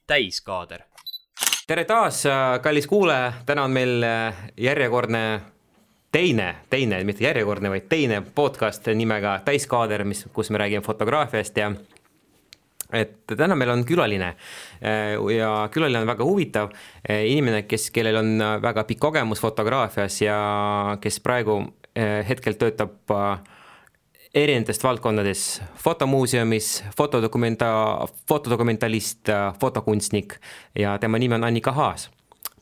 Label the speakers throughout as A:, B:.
A: täiskaader.
B: Tere taas, kallis kuulaja, täna on meil järjekordne teine, mitte järjekordne, vaid teine podcast nimega Täiskaader, kus me räägime fotograafiast ja et täna meil on külaline ja külaline on väga huvitav inimene, kellel on väga pikk kogemus fotograafias ja kes praegu hetkel töötab erinevatest valdkondades fotomuuseumis, fotodokumentalist, fotokunstnik ja tema nimi on Annika Haas.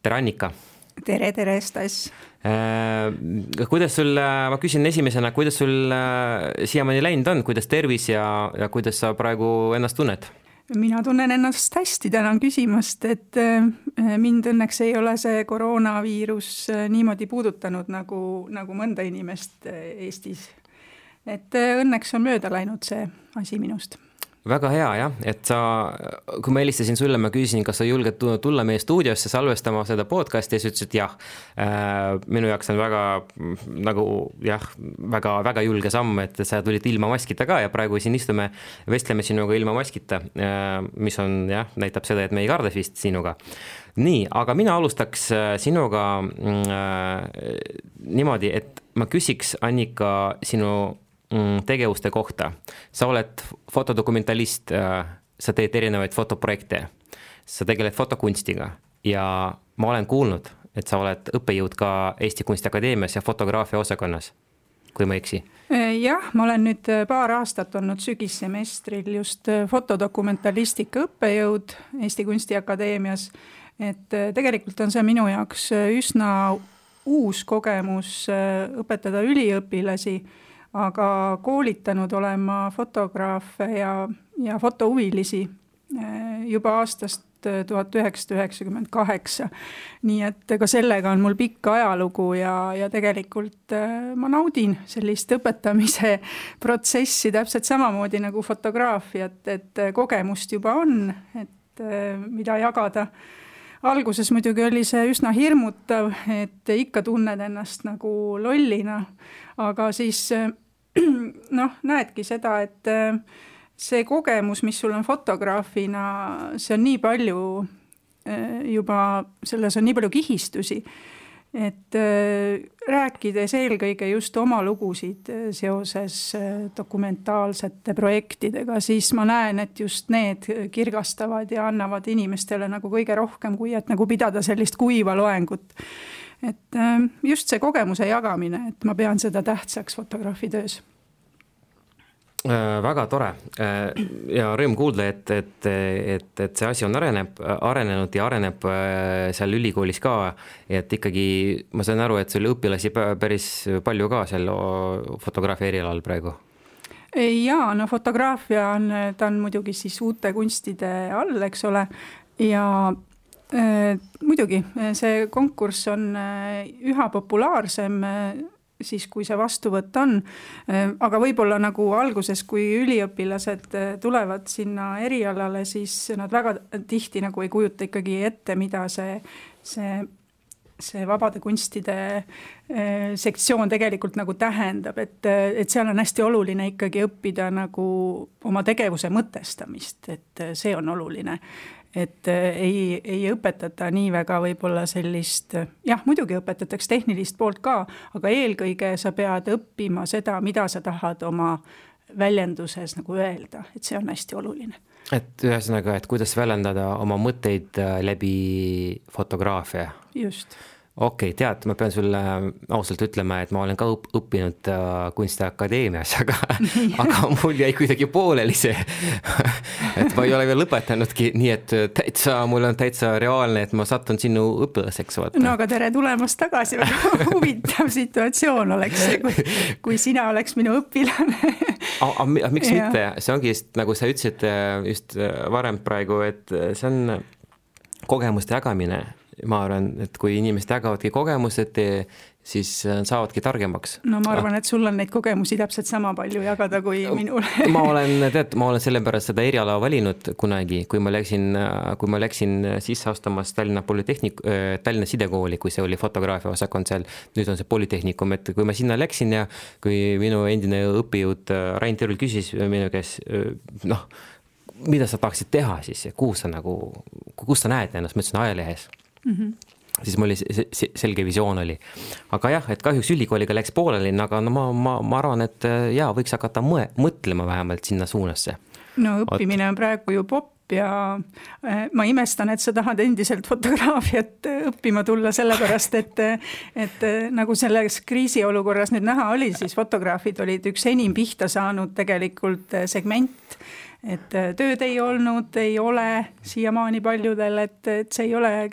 B: Tere Annika!
C: Tere, Stas!
B: Kuidas sul, ma küsin esimesena, kuidas sul siiamaani läinud on, kuidas tervis ja kuidas sa praegu ennast tunned?
C: Mina tunnen ennast hästi, tänan küsimast, et mind õnneks ei ole see koroonaviirus niimoodi puudutanud nagu mõnda inimest Eestis. Et õnneks on mööda läinud see asi minust.
B: Väga hea, jah, et kui ma helistasin sulle, ma küsisin, kas sa julged tulla meie stuudiosse salvestama seda podcasti ja sa ütlesid jah. Minu jaoks on väga julge samm, et sa tulid ilma maskita ka ja praegu siin istume, vestleme sinuga ilma maskita, mis on, jah, näitab seda, et me ei karda vist sinuga. Nii, aga mina alustaks sinuga niimoodi, et ma küsiks Annika sinu tegevuste kohta. Sa oled fotodokumentalist, sa teed erinevaid fotoprojekte, sa tegeled fotokunstiga ja ma olen kuulnud, et sa oled õppejõud ka Eesti Kunstiakadeemias ja fotograafia osakonnas, kui ma eksi.
C: Jah, ma olen nüüd paar aastat olnud sügissemestril just fotodokumentalistika õppejõud Eesti Kunstiakadeemias, et tegelikult on see minu jaoks üsna uus kogemus õpetada üliõpilasi, aga koolitanud olema fotograafe ja fotohuvilisi juba aastast 1998. Nii et ka sellega on mul pikk ajalugu ja tegelikult ma naudin sellist õpetamise protsessi täpselt samamoodi nagu fotograafiat, et kogemust juba on, et mida jagada. Alguses muidugi oli see üsna hirmutav, et ikka tunned ennast nagu lollina, aga siis näedki seda, et see kogemus, mis sul on fotograafina, see on nii palju juba, selles on nii palju kihistusi, et rääkides eelkõige just oma lugusid seoses dokumentaalsete projektidega, siis ma näen, et just need kirgastavad ja annavad inimestele nagu kõige rohkem, kui et nagu pidada sellist kuiva loengut. Et just see kogemuse jagamine, et ma pean seda tähtsaks fotograafi töös.
B: Väga tore ja rõõm kuulda, et see asi on arenenud ja areneb seal ülikoolis ka, et ikkagi ma saan aru, et sul õpilasi päris palju ka seal fotograafia erialal praegu.
C: Jaa, fotograafia ta on muidugi siis uute kunstide all, eks ole, ja muidugi see konkurss on üha populaarsem siis, kui see vastuvõtt on, aga võib-olla nagu alguses, kui üliõpilased tulevad sinna erialale, siis nad väga tihti nagu ei kujuta ikkagi ette, mida see vabade kunstide sektsioon tegelikult nagu tähendab, et seal on hästi oluline ikkagi õppida nagu oma tegevuse mõtestamist, et see on oluline. Et ei õpetata nii väga võib-olla sellist, jah, muidugi õpetatakse tehnilist poolt ka, aga eelkõige sa pead õppima seda, mida sa tahad oma väljenduses nagu öelda, et see on hästi oluline.
B: Et ühesõnaga, et kuidas väljendada oma mõtteid läbi fotograafia.
C: Just.
B: Okei, tead, ma pean sulle ausalt ütlema, et ma olen ka õppinud Kunstiakadeemias, aga mul jäi kuidagi pooleli see, et ma ei ole veel lõpetanudki, nii et mul on täitsa reaalne, et ma sattun sinu õpilaseks. Vaata.
C: No aga tere tulemast tagasi, väga huvitav situatsioon oleks see, kui sina oleks minu õpilane.
B: Miks mitte? See ongi just, nagu sa ütlesid just varem praegu, et see on kogemuste jagamine. Ma arvan, et kui inimesed jagavadki kogemused, siis saavadki targemaks.
C: No ma arvan, et sul on neid kogemusi täpselt sama palju jagada kui minul.
B: ma olen selle pärast seda eriala valinud kunagi, kui ma läksin sisse astumas Tallinna Sidekooli, kui see oli fotograafia osakond seal, nüüd on see Polütehnikum, et kui ma sinna läksin ja kui minu endine õppejõud Rain Terul küsis minu käes, mida sa tahaksid teha siis ja kuhu kus sa näed ennast, ma ütlesin ajalehes. Siis mul selge visioon oli. Aga jah, et kahjuks ülikooliga läks pooleli, aga no ma arvan, et jaa, võiks hakata mõtlema vähemalt sinna suunasse.
C: No õppimine on praegu ju popp ja ma imestan, et sa tahad endiselt fotograafiat õppima tulla sellepärast, et nagu selles kriisiolukorras nüüd näha oli, siis fotograafid olid üks enim pihta saanud tegelikult segment, et tööd ei olnud, ei ole siiamaani paljudel, et see ei ole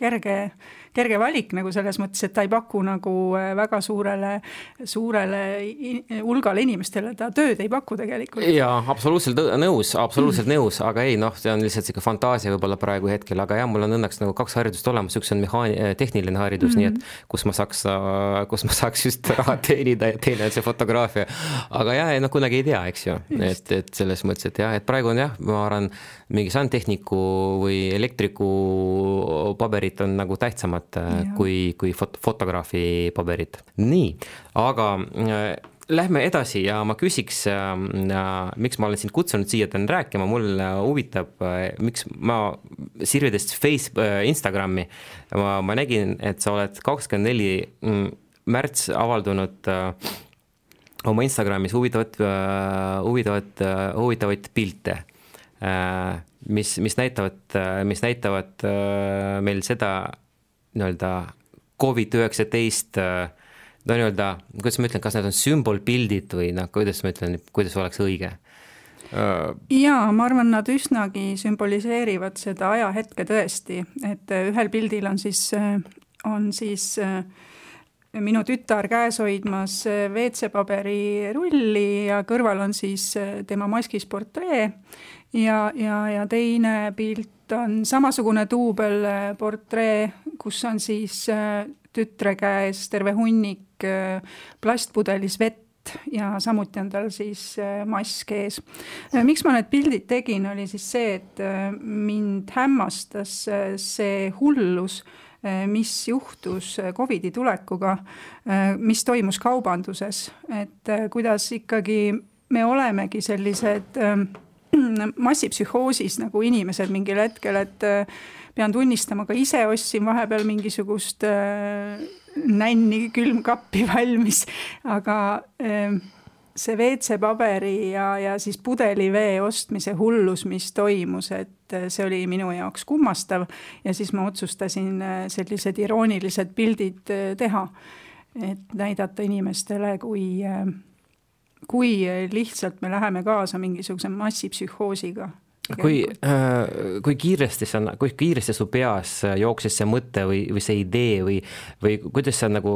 C: kerge valik nagu selles mõttes, et ta ei paku nagu väga suurele hulgale inimestele, ta tööd ei paku tegelikult.
B: Jaa, absoluutselt nõus, aga ei, see on lihtsalt siuke fantaasia võib-olla praegu hetkel, aga jah, mul on õnneks nagu 2 haridust olemas, üks on tehniline haridus, nii et kus ma saaks just raha teenida ja teine on see fotograafia. Aga jah, kunagi ei tea, eks ju, et selles mõttes, et jah, et praegu on jah, ma arvan, mingi sandtehniku või elektriku paberit on nagu tähtsamad kui fotograafi paberit. Nii, aga lähme edasi ja ma küsiks, miks ma olen sind kutsunud siia täna rääkima, mul huvitab, miks ma sirvides Instagrami, ma nägin, et sa oled 24. märts avaldunud oma Instagramis huvitavaid pilte, mis näitavad meil seda nii-öelda COVID-19, no nii-öelda, kuidas ma ütlen, kas need on sümbolpildid või kuidas ma ütlen, kuidas oleks õige?
C: Jaa, ma arvan, nad üsnagi sümboliseerivad seda ajahetke tõesti, et ühel pildil on siis minu tütar käes hoidmas WC-paberi rulli ja kõrval on siis tema maskis portree ja teine pilt on samasugune duubelportree, kus on siis tütre käes terve hunnik plastpudelis vett ja samuti on tal siis mask ees. Miks ma need pildid tegin, oli siis see, et mind hämmastas see hullus, mis juhtus COVID-i tulekuga, mis toimus kaubanduses, et kuidas ikkagi me olemegi sellised massipsühhoosis nagu inimesed mingil hetkel, et pean tunnistama, ka ise ostsin vahepeal mingisugust nänni külmkappi valmis, aga see WC-paberi ja siis pudelivee ostmise hullus, mis toimus, et see oli minu jaoks kummastav ja siis ma otsustasin sellised iroonilised pildid teha, et näidata inimestele, kui lihtsalt me läheme kaasa mingisuguse massipsühhoosiga.
B: Kui kiiresti su peas jooksis see mõte või see idee või kuidas sa nagu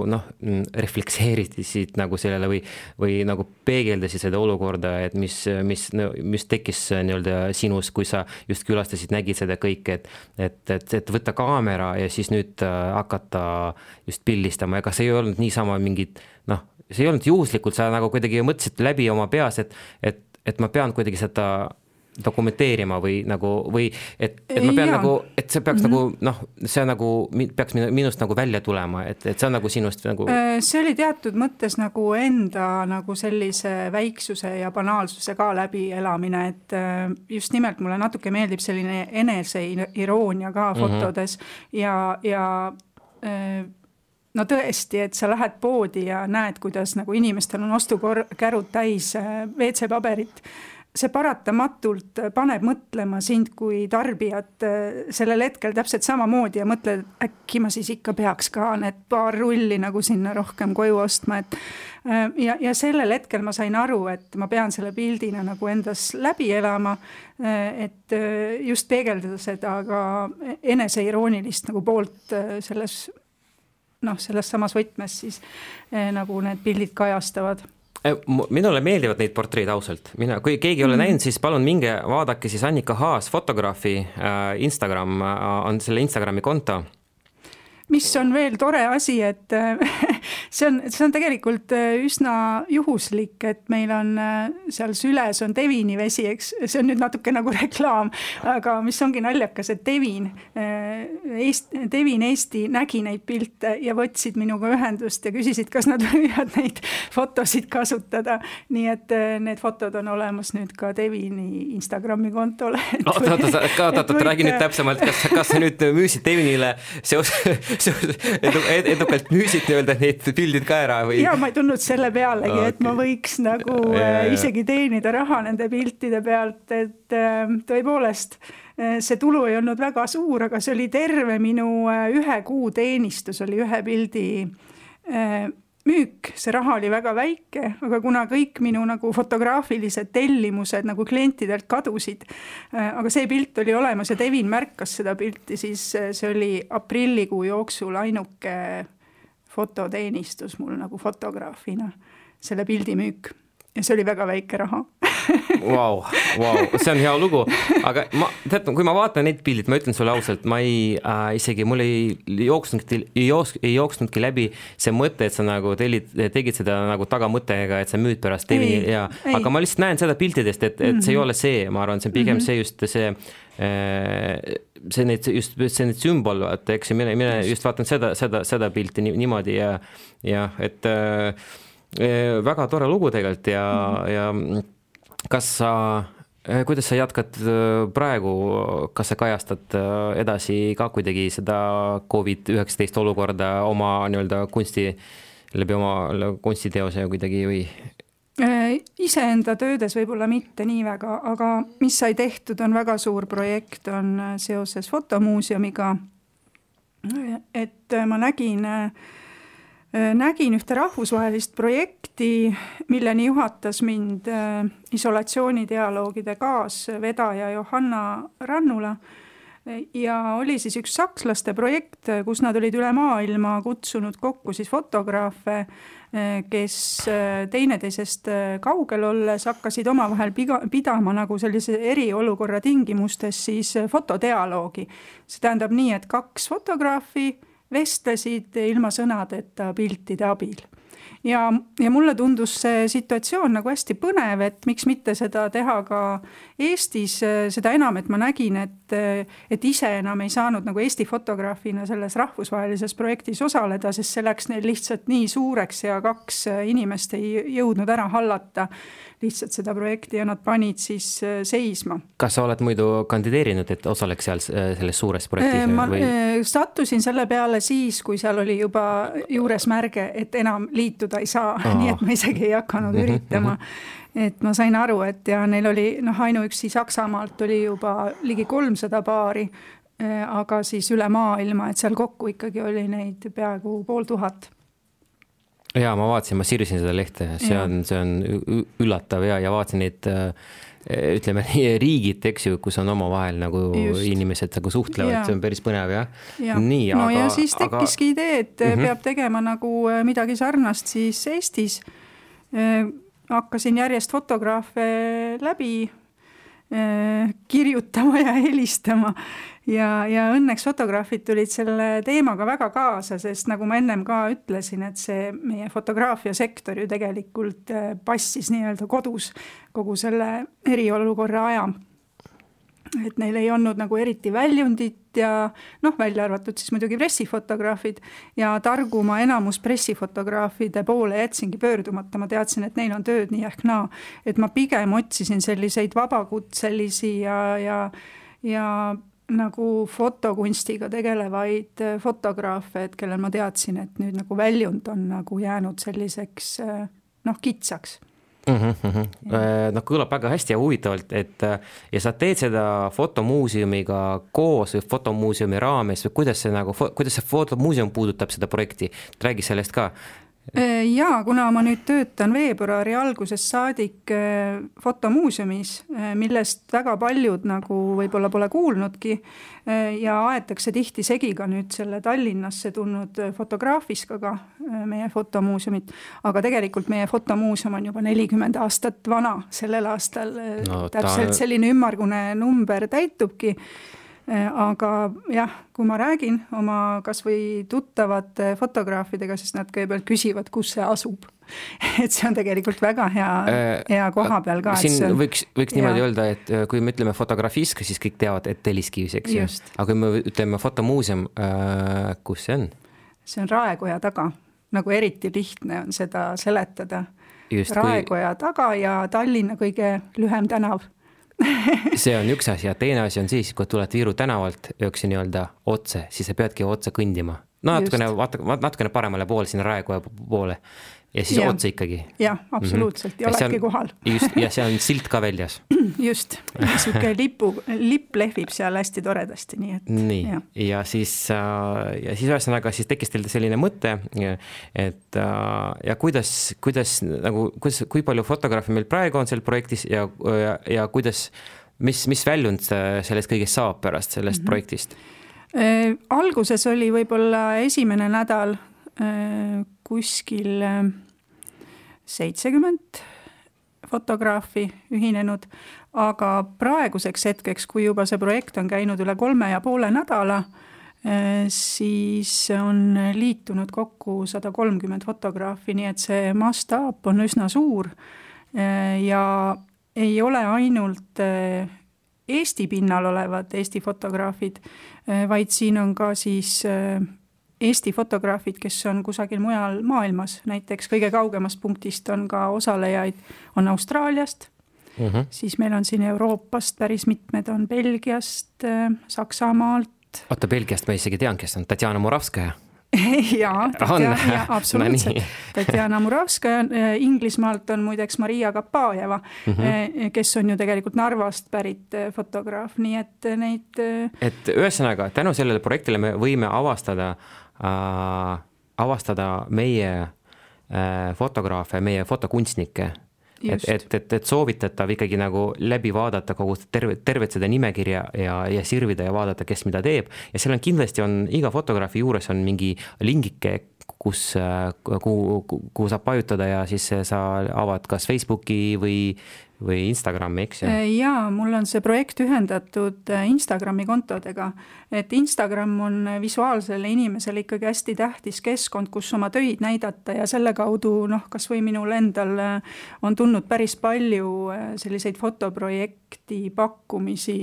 B: reflekseerisid nagu sellele või nagu peegeldasid seda olukorda, et mis tekkis nii-öelda sinus, kui sa just külastasid, nägid seda kõike, et võtta kaamera ja siis nüüd hakata just pildistama, ega see ei olnud niisama mingid, see ei olnud juhuslikult, sa nagu kuidagi mõtlesid läbi oma peas, et ma pean kuidagi seda dokumenteerima või et ma pean nagu, et see peaks see nagu peaks minust nagu välja tulema, et see on nagu sinust nagu.
C: See oli teatud mõttes nagu enda nagu sellise väiksuse ja banaalsuse ka läbi elamine, et just nimelt mulle natuke meeldib selline eneseiiroonia ka fotodes ja no tõesti, et sa lähed poodi ja näed, kuidas nagu inimestel on ostukärud täis WC-paberit. See paratamatult paneb mõtlema sind kui tarbijat sellel hetkel täpselt samamoodi ja mõtled, äkki ma siis ikka peaks ka need paar rulli nagu sinna rohkem koju ostma. Ja sellel hetkel ma sain aru, et ma pean selle pildina nagu endas läbi elama, et just peegeldada seda ka eneseiroonilist nagu poolt selles samas võtmes siis nagu need pildid kajastavad.
B: Minule meeldivad neid portreid ausalt. Kui keegi ei ole näinud, siis palun minge vaadake siis Annika Haas fotograafi Instagram, on selle Instagrami konto.
C: mis on veel tore asi, et see on tegelikult üsna juhuslik, et meil on seal süles on Devini vesi, eks, see on nüüd natuke nagu reklaam, aga mis ongi naljakas, et Devin Eesti nägi neid pilte ja võtsid minuga ühendust ja küsisid, kas nad võivad neid fotosid kasutada. Nii et need fotod on olemas nüüd ka Devini Instagrami kontole.
B: Oota, räägi nüüd täpsemalt, kas sa nüüd müüsid Devinile edukalt müüsid neid pildid ka ära? Või?
C: Ja ma ei tundnud selle pealegi, et ma võiks nagu isegi teenida raha nende piltide pealt, et tõepoolest see tulu ei olnud väga suur, aga see oli terve minu 1 kuu teenistus, oli 1 pildi müük, see raha oli väga väike, aga kuna kõik minu nagu fotograafilised tellimused nagu klientidelt kadusid, aga see pilt oli olemas ja Devin märkas seda pilti, siis see oli aprillikuu jooksul ainuke fototeenistus mul nagu fotograafina, selle pildi müük. Ja see oli väga väike raha.
B: Wow, see on hea lugu, aga kui ma vaatan neid pildid, ma ütlen sulle ausalt, ma mul ei jooksnudki läbi see mõte, et sa nagu tegid seda nagu tagamõttega, et sa müüd pärast Devini aga ma lihtsalt näen seda piltidest, et see ei ole see, ma arvan, see on pigem see just need sümbol, eks mine just vaatan seda pilti niimoodi ja et väga tore lugu tegelikult ja kuidas sa jätkad praegu, kas sa kajastad edasi ka kuidagi seda COVID-19 olukorda oma nii-öelda läbi oma kunstiteose kuidagi või?
C: Iseenda töödes võib-olla mitte nii väga, aga mis sai tehtud on väga suur projekt, on seoses fotomuuseumiga, et ma nägin ühte rahvusvahelist projekti, milleni juhatas mind isolatsioonidialoogide kaasvedaja Johanna Rannula ja oli siis üks sakslaste projekt, kus nad olid üle maailma kutsunud kokku siis fotograafe, kes teineteisest kaugel olles hakkasid omavahel pidama nagu sellise eriolukorra tingimustes siis fotodialoogi. See tähendab nii, et 2 fotograafi vestlesid ilma sõnadeta piltide abil. Ja mulle tundus see situatsioon nagu hästi põnev, et miks mitte seda teha ka Eestis, seda enam, et ma nägin, et ise enam ei saanud nagu Eesti fotograafina selles rahvusvahelises projektis osaleda, sest see läks neil lihtsalt nii suureks ja 2 inimest ei jõudnud ära hallata lihtsalt seda projekti ja nad panid siis seisma.
B: Kas sa oled muidu kandideerinud, et osaleks seal selles suures projektis?
C: Ma sattusin selle peale siis, kui seal oli juba juures märge, et enam liituda ei saa, nii et ma isegi ei hakanud üritama. Et ma sain aru, et ja neil oli ainuüksi Saksamaalt oli juba ligi 300 paari, aga siis üle maailma, et seal kokku ikkagi oli neid peaaegu 500.
B: Ja ma vaatasin, ma sirvisin seda lehte, see on üllatav ja vaatasin neid, ütleme, riigid, eks ju, kus on omavahel nagu inimesed nagu suhtlevad, see on päris põnev, jah?
C: Nii, ja siis tekkiski idee, et peab tegema nagu midagi sarnast siis Eestis. Hakkasin järjest fotograafe läbi kirjutama ja helistama ja õnneks fotograafid tulid selle teemaga väga kaasa, sest nagu ma ennem ka ütlesin, et see meie fotograafia sektor ju tegelikult passis nii-öelda kodus kogu selle eriolukorra aja. Et neil ei olnud nagu eriti väljundit ja välja arvatud siis muidugi pressifotograafid ja targuma enamus pressifotograafide poole jätsingi pöördumata. Ma teadsin, et neil on tööd nii ehk naa, et ma pigem otsisin selliseid vabakutselisi ja nagu fotokunstiga tegelevaid fotograafe, et kellel ma teadsin, et nüüd nagu väljund on nagu jäänud selliseks kitsaks.
B: Kõlab väga hästi ja huvitavalt, et ja sa teed seda fotomuuseumiga koos või fotomuuseumi raames või kuidas see fotomuuseum puudutab seda projekti? Räägi sellest ka.
C: Jaa, kuna ma nüüd töötan veebruari algusest saadik fotomuuseumis, millest väga paljud nagu võib-olla pole kuulnudki ja aetakse tihti segi ka nüüd selle Tallinnasse tulnud fotograafiskaga meie fotomuuseumit, aga tegelikult meie fotomuuseum on juba 40 aastat vana sellel aastal, täpselt selline ümmargune number täitubki. Aga jah, kui ma räägin oma kas või tuttavate fotograafidega, siis nad kõigepealt küsivad, kus see asub. Et see on tegelikult väga hea koha peal ka.
B: Siin võiks niimoodi öelda, et kui me ütleme fotografisk, siis kõik teavad, et Telliskivis, eks. Aga kui me ütleme fotomuuseum, kus see on? See
C: on Raekoja taga. Nagu eriti lihtne on seda seletada. Raekoja taga ja Tallinna kõige lühem tänav.
B: See on üks asi ja teine asi on siis, kui tuled Viiru tänavalt jooksi nii-öelda otse, siis sa peadki otse kõndima. Natukene paremale pool sinna Raekoja poole ja siis otse ikkagi.
C: Jah, absoluutselt. Ja oledki kohal.
B: Just, ja see on silt ka väljas.
C: Just. Siuke lipp lehvib seal hästi toredasti.
B: Nii. Ja siis ühesõnaga siis tekkis teil selline mõte, et ja kui palju fotograafi meil praegu on seal projektis ja kuidas, mis väljund sellest kõigest saab pärast sellest projektist?
C: Alguses oli võib-olla esimene nädal kuskil 70 fotograafi ühinenud, aga praeguseks hetkeks, kui juba see projekt on käinud üle 3,5 nädala, siis on liitunud kokku 130 fotograafi, nii et see mastaap on üsna suur ja ei ole ainult Eesti pinnal olevad Eesti fotograafid, vaid siin on ka siis Eesti fotograafid, kes on kusagil mujal maailmas, näiteks kõige kaugemast punktist on ka osalejaid, on Austraaliast, siis meil on siin Euroopast päris mitmed, on Belgiast, Saksamaalt.
B: Oota, Belgiast ma isegi tean, kes on Tatjana Muravskaja.
C: Jaa, absoluutselt. Tatjana Muravskaja, Inglismaalt on muideks Maria Kapajeva, kes on ju tegelikult Narvast pärit fotograaf, nii et neid...
B: Et ühesõnaga, tänu sellele projektile me võime avastada meie fotograafe, meie fotokunstnikke. Et soovitatav ikkagi nagu läbi vaadata kogu tervet seda nimekirja ja sirvida ja vaadata, kes mida teeb. Ja seal on kindlasti iga fotograafi juures on mingi lingike, kuhu saab pajutada ja siis sa avad kas Facebooki või Instagrami, eks?
C: Jaa, mul on see projekt ühendatud Instagrami kontodega, et Instagram on visuaalsele inimesele ikkagi hästi tähtis keskkond, kus oma töid näidata ja selle kaudu, kas või minul endal on tulnud päris palju selliseid fotoprojekti pakkumisi,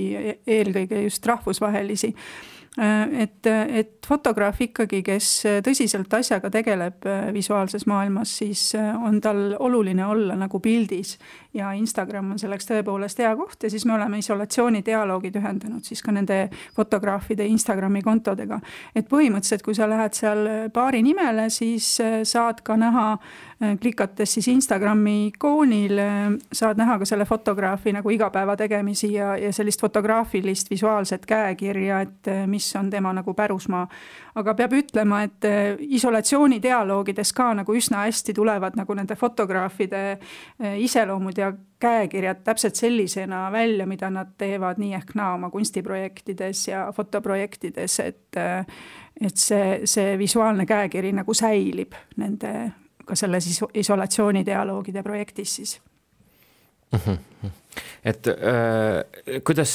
C: eelkõige just rahvusvahelisi. Et fotograaf ikkagi, kes tõsiselt asjaga tegeleb visuaalses maailmas, siis on tal oluline olla nagu pildis ja Instagram on selleks tõepoolest hea koht ja siis me oleme isolatsioonidialoogid ühendanud siis ka nende fotograafide Instagrami kontodega. Et põhimõtteliselt, kui sa lähed seal paari nimele, siis saad ka näha, klikates siis Instagrami ikoonil, saad näha ka selle fotograafi nagu igapäeva tegemisi ja sellist fotograafilist visuaalset käekirja, et mis on tema nagu pärusmaa. Aga peab ütlema, et isolatsioonidialoogides ka nagu üsna hästi tulevad nagu nende fotograafide iseloomud ja käekirjad täpselt sellisena välja, mida nad teevad nii ehk naa oma kunstiprojektides ja fotoprojektides, et see visuaalne käekiri nagu säilib nende ka selles isolatsioonidialoogide projektis siis.
B: Et kuidas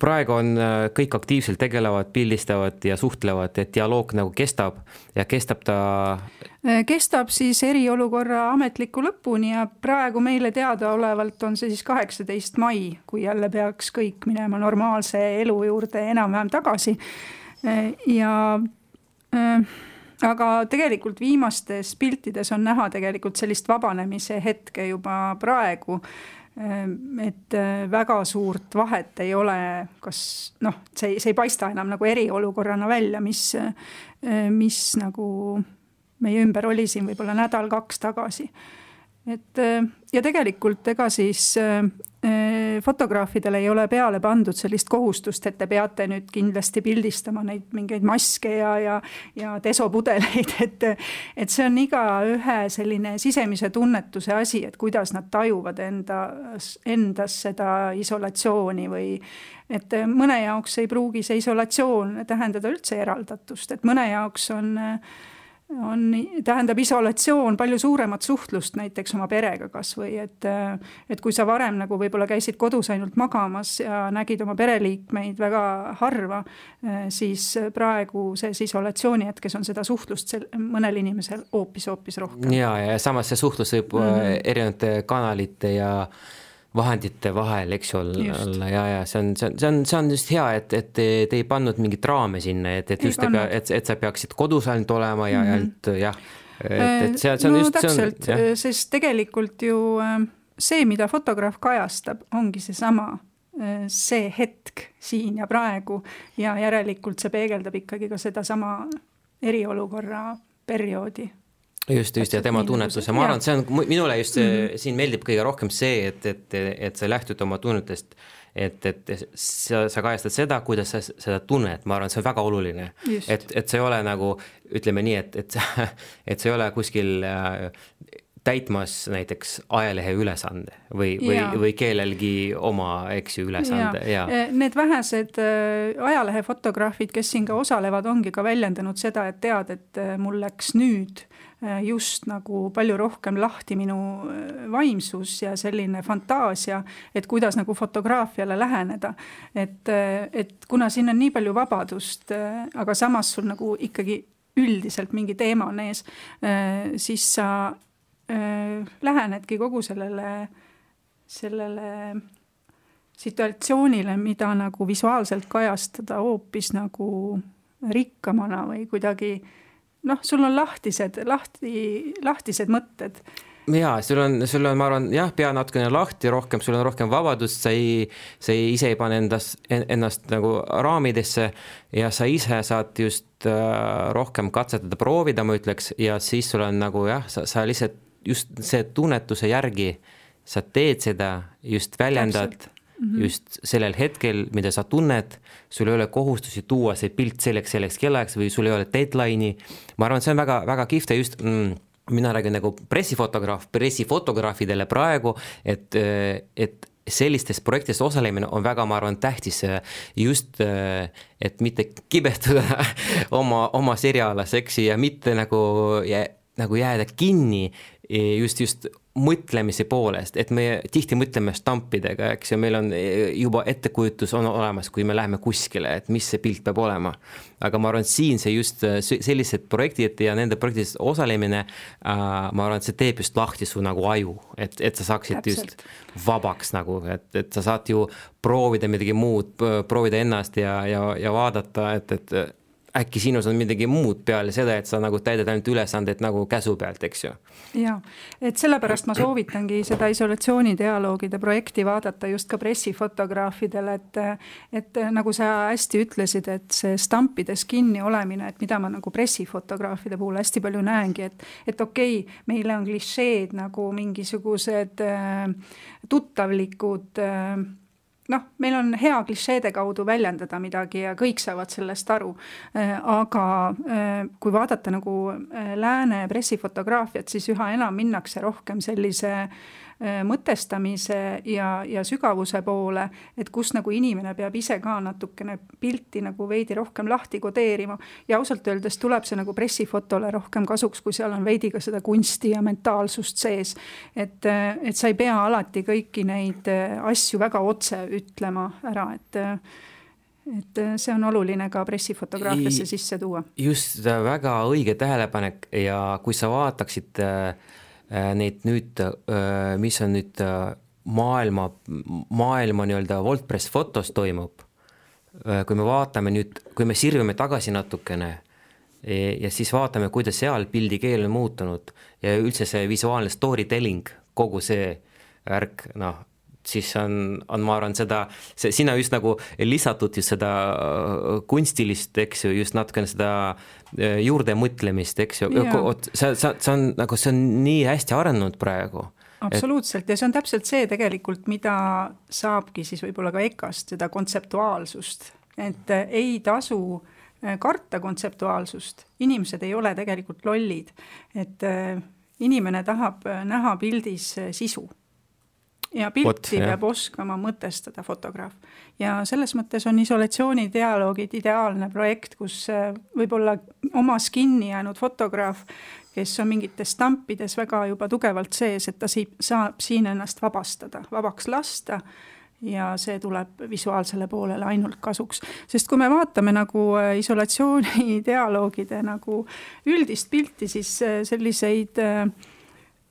B: praegu on kõik aktiivselt tegelevad, pildistavad ja suhtlevad, et dialoog nagu kestab ja kestab ta?
C: Kestab siis eriolukorra ametliku lõpuni ja praegu meile teada olevalt on see siis 18. mai, kui jälle peaks kõik minema normaalse elu juurde enam-vähem tagasi. Aga tegelikult viimastes piltides on näha tegelikult sellist vabanemise hetke juba praegu, et väga suurt vahet ei ole, kas see ei paista enam nagu eriolukorrana välja, mis nagu meie ümber oli siin võib-olla nädal-kaks tagasi. Ja tegelikult ega siis fotograafidele ei ole peale pandud sellist kohustust, et te peate nüüd kindlasti pildistama neid mingeid maske ja desopudeleid, et see on iga ühe selline sisemise tunnetuse asi, et kuidas nad tajuvad endas seda isolatsiooni või et mõne jaoks ei pruugi see isolatsioon tähendada üldse eraldatust, et mõne jaoks on tähendab isolatsioon palju suuremat suhtlust näiteks oma perega kas või, et kui sa varem nagu võib-olla käisid kodus ainult magamas ja nägid oma pereliikmeid väga harva, siis praegu see isolatsiooni hetkes on seda suhtlust mõnel inimesel hoopis rohkem.
B: Ja samas see suhtlus võib erinevate kanalite ja vahendite vahel, eks olla, ja see on just hea, et te ei pannud mingit raame sinna, et sa peaksid kodus ainult olema ja ainult, jah.
C: Täpselt, sest tegelikult ju see, mida fotograaf kajastab, ongi see hetk siin ja praegu ja järelikult see peegeldab ikkagi ka seda sama eriolukorra perioodi.
B: Just, ja tema tunnetuse. Ma arvan, see on minule just siin meeldib kõige rohkem see, et sa lähtud oma tunnetest, et sa kajastad seda, kuidas sa seda tunned. Ma arvan, see on väga oluline. Et see ei ole nagu, ütleme nii, et see ei ole kuskil täitmas näiteks ajalehe ülesande või kellelgi oma ülesande.
C: Need vähesed ajalehe fotograafid, kes siin ka osalevad, ongi ka väljendanud seda, et tead, et mul läks nüüd just nagu palju rohkem lahti minu vaimsus ja selline fantaasia, et kuidas nagu fotograafiale läheneda. Et kuna siin on nii palju vabadust, aga samas sul nagu ikkagi üldiselt mingi teema on ees, siis sa lähenedki kogu sellele situatsioonile, mida nagu visuaalselt kajastada hoopis nagu rikkamana või kuidagi, sul on lahtised mõtted.
B: Jaa, sul on, ma arvan, pea natukene lahti rohkem, sul on rohkem vabadust, sa ise ei pane ennast nagu raamidesse ja sa ise saad just rohkem katsetada, proovida, ma ütleks, ja siis sul on nagu sa lihtsalt just see tunnetuse järgi, sa teed seda, just väljendad just sellel hetkel, mida sa tunned, sul ei ole kohustusi tuua see pilt selleks kellaks või sul ei ole deadline'i. Ma arvan, see on väga, väga kihvte just, mina räägin nagu pressifotograafidele praegu, et sellistes projektides osalemine on väga, ma arvan, tähtis just, et mitte kibestuda oma seriaalas, eks, ja mitte nagu jääda kinni just mõtlemise poolest, et me tihti mõtleme stampidega, eks, ja meil on juba ettekujutus on olemas, kui me läheme kuskile, et mis see pilt peab olema. Aga ma arvan, siin see just sellised projektid ja nende projektidest osalemine, ma arvan, et see teeb just lahti su nagu aju, et sa saaksid just vabaks nagu, et sa saad ju proovida midagi muud, proovida ennast ja vaadata, et äkki sinus on midagi muud peale seda, et sa nagu täidad ainult ülesanded nagu käsu pealt, eks ju.
C: Ja, et sellepärast ma soovitangi seda isolatsioonidialoogide projekti vaadata just ka pressifotograafidele, et nagu sa hästi ütlesid, et see stampides kinni olemine, et mida ma nagu pressifotograafide puhul hästi palju näengi, et okei, meile on klišeed nagu mingisugused tuttavlikud meil on hea klišeede kaudu väljendada midagi ja kõik saavad sellest aru, aga kui vaadata nagu lääne pressifotograafiat, siis üha enam minnakse rohkem sellise mõtestamise ja sügavuse poole, et kus nagu inimene peab ise ka natukene pilti nagu veidi rohkem lahti kodeerima ja ausalt öeldes tuleb see nagu pressifotole rohkem kasuks, kui seal on veidi ka seda kunsti ja mentaalsust sees, et sa ei pea alati kõiki neid asju väga otse ütlema ära, et see on oluline ka pressifotograafiasse sisse tuua.
B: Just väga õige tähelepanek ja kui sa vaataksid neid nüüd, mis on nüüd maailma nii-öelda WordPress fotos toimub, kui me vaatame nüüd, kui me sirvime tagasi natukene ja siis vaatame, kuidas seal pildi keel on muutunud ja üldse see visuaalne storytelling, kogu see värk, siis on ma arvan sina just nagu lisatud just seda kunstilist, eks ju, just natukene seda juurde mõtlemist, eks ju, see on nii hästi arenenud praegu.
C: Absoluutselt, ja see on täpselt see tegelikult, mida saabki siis võib-olla ka EKA-st, seda kontseptuaalsust, et ei tasu karta kontseptuaalsust, inimesed ei ole tegelikult lollid, et inimene tahab näha pildis sisu. ja pilti peab oskama mõtestada fotograaf. Ja selles mõttes on isolatsioonidialoogid ideaalne projekt, kus võib-olla omas kinni jäänud fotograaf, kes on mingites stampides väga juba tugevalt sees, et ta saab siin ennast vabaks lasta ja see tuleb visuaalsele poolele ainult kasuks. Sest kui me vaatame nagu isolatsioonidialoogide nagu üldist pilti, siis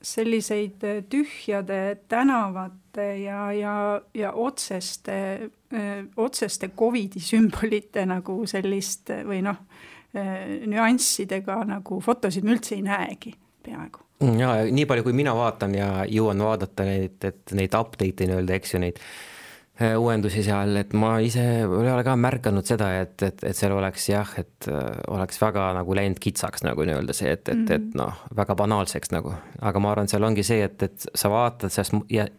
C: selliseid tühjade tänavate ja otseste COVID-i sümbolite nagu sellist või nüanssidega nagu fotosid me üldse ei näegi peaaegu.
B: Ja nii palju, kui mina vaatan ja jõuan vaadata neid update'i nii-öelda, eks ju, neid uuendusi seal, et ma ise ei ole ka märganud seda, et seal oleks et oleks väga nagu läinud kitsaks nagu nii-öelda see, et väga banaalseks nagu. Aga ma arvan, seal ongi see, et sa vaatad ja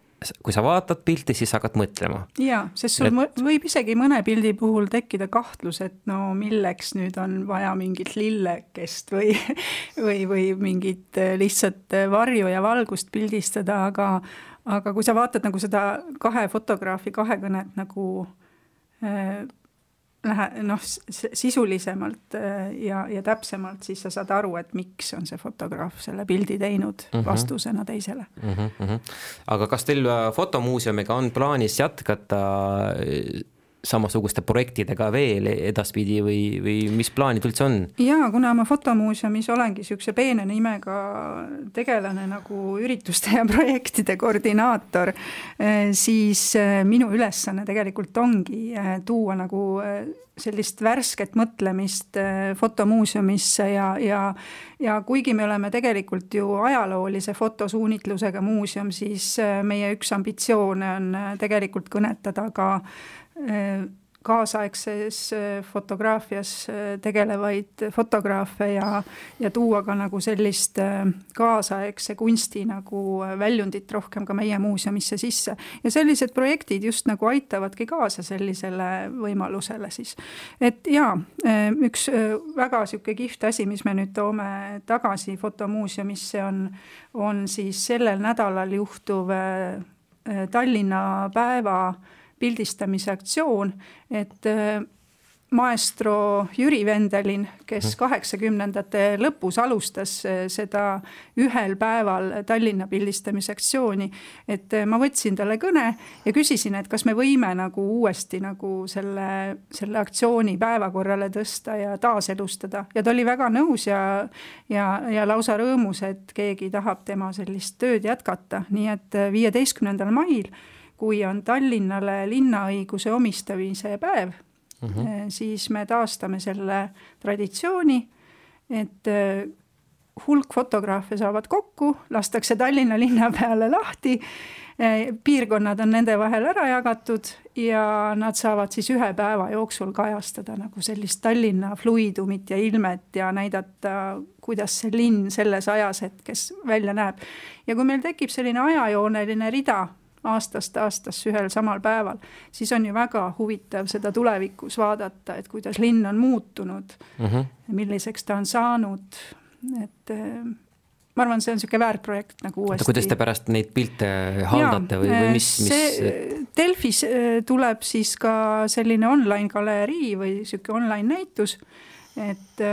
B: kui sa vaatad pilti, siis hakkad mõtlema.
C: Jaa, sest sul võib isegi mõne pildi puhul tekkida kahtlus, et milleks nüüd on vaja mingit lillekest või mingit lihtsalt varju ja valgust pildistada, aga kui sa vaatad nagu seda kahe fotograafi kahekõnet nagu sisulisemalt ja täpsemalt, siis sa saad aru, et miks on see fotograaf selle pildi teinud vastusena teisele.
B: Aga kas teil fotomuuseumiga on plaanis jätkata samasuguste projektidega veel edaspidi või mis plaanid üldse on?
C: Jaa, kuna ma fotomuuseumis olengi sükse peene nimega tegelane nagu ürituste ja projektide koordinaator, siis minu ülesanne tegelikult ongi tuua nagu sellist värsket mõtlemist fotomuuseumisse ja kuigi me oleme tegelikult ju ajaloolise fotosuunitlusega muuseum, siis meie üks ambitsioone on tegelikult kõnetada ka kaasaegses fotograafias tegelevaid fotograafe ja tuua ka nagu sellist kaasaegse kunsti nagu väljundit rohkem ka meie muuseumisse sisse. Ja sellised projektid just nagu aitavadki kaasa sellisele võimalusele siis. Et jaa, üks väga siuke kihvt asi, mis me nüüd toome tagasi fotomuuseumisse on siis sellel nädalal juhtuv Tallinna päeva pildistamise aktsioon, et maestro Jüri Vendelin, kes 80ndate lõpus alustas seda ühel päeval Tallinna pildistamise aktsiooni, et ma võtsin talle kõne ja küsisin, et kas me võime nagu uuesti nagu selle aktsiooni päevakorrale tõsta ja taaselustada. Ja ta oli väga nõus ja lausa rõõmus, et keegi tahab tema sellist tööd jätkata. Nii et 15. mail kui on Tallinnale linnaõiguse omistamise päev, siis me taastame selle traditsiooni, et hulk fotograafe saavad kokku, lastakse Tallinna linna peale lahti, piirkonnad on nende vahel ära jagatud ja nad saavad siis ühe päeva jooksul kajastada nagu sellist Tallinna fluidumit ja ilmet ja näidata, kuidas see linn selles ajashetkes välja näeb. Ja kui meil tekib selline ajajooneline rida aastast ühel samal päeval, siis on ju väga huvitav seda tulevikus vaadata, et kuidas linn on muutunud, milliseks ta on saanud, et ma arvan, see on selline väärtprojekt nagu uuesti.
B: Kuidas te pärast neid pilte haldate või mis?
C: Delfis tuleb siis ka selline online galerii või selline online näitus, et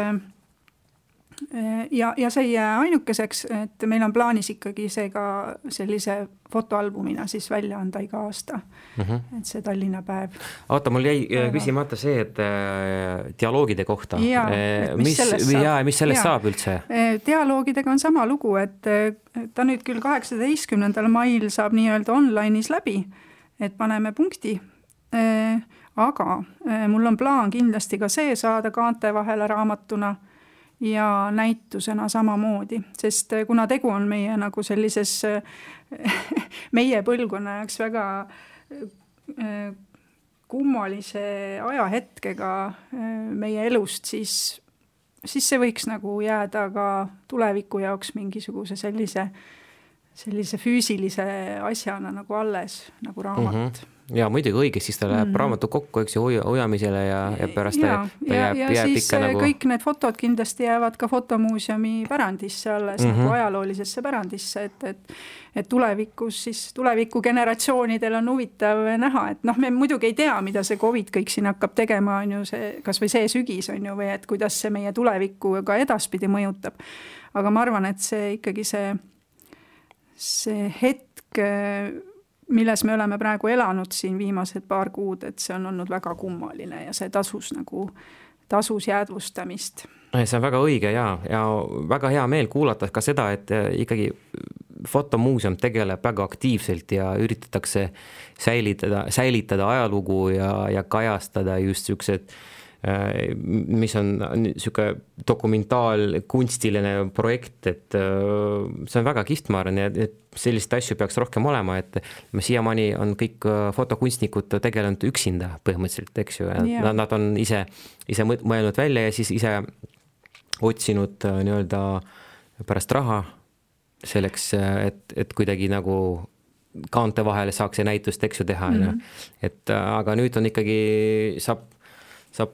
C: ja see ei jää ainukeseks, et meil on plaanis ikkagi see ka sellise fotoalbumina siis välja anda iga aasta, et see Tallinna päev.
B: Oota, mul jäi küsimata see, et dialoogide kohta. Mis sellest saab üldse?
C: Dialoogidega on sama lugu, et ta nüüd küll 18. mail saab nii-öelda online'is läbi, et paneme punkti, aga mul on plaan kindlasti ka see saada kaante vahele raamatuna ja näitusena samamoodi, sest kuna tegu on meie nagu sellises meie põlvkonna jaoks väga kummalise ajahetkega meie elust, siis see võiks nagu jääda ka tuleviku jaoks mingisuguse sellise sellise füüsilise asjana nagu alles, nagu raamat.
B: Ja muidugi õige, siis ta läheb raamatu kokku, eks ju, hoiamisele ja pärast ta jääb
C: siis
B: ikka nagu...
C: kõik need fotod kindlasti jäävad ka fotomuuseumi pärandisse alles, nagu ajaloolisesse pärandisse, et tulevikus siis tuleviku generatsioonidel on huvitav näha, et me muidugi ei tea, mida see COVID kõik siin hakkab tegema, on ju see, kas või see sügis on ju, või et kuidas see meie tulevikku ka edaspidi mõjutab. Aga ma arvan, et see ikkagi see hetk, milles me oleme praegu elanud siin viimased paar kuud, et see on olnud väga kummaline ja see tasus jäädvustamist.
B: See on väga õige ja väga hea meel kuulata ka seda, et ikkagi fotomuuseum tegeleb väga aktiivselt ja üritatakse säilitada ajalugu ja kajastada just niisugused, mis on niisugune dokumentaalkunstiline projekt, et see on väga kihvt, ma arvan, et sellist asju peaks rohkem olema, et siiamaani on kõik fotokunstnikud tegelenud üksinda põhimõtteliselt, eks ju, nad on ise mõelnud välja ja siis ise otsinud nii-öelda pärast raha selleks, et kuidagi nagu kaante vahele saaks see näitust, eks ju, teha. Et aga nüüd on ikkagi, saab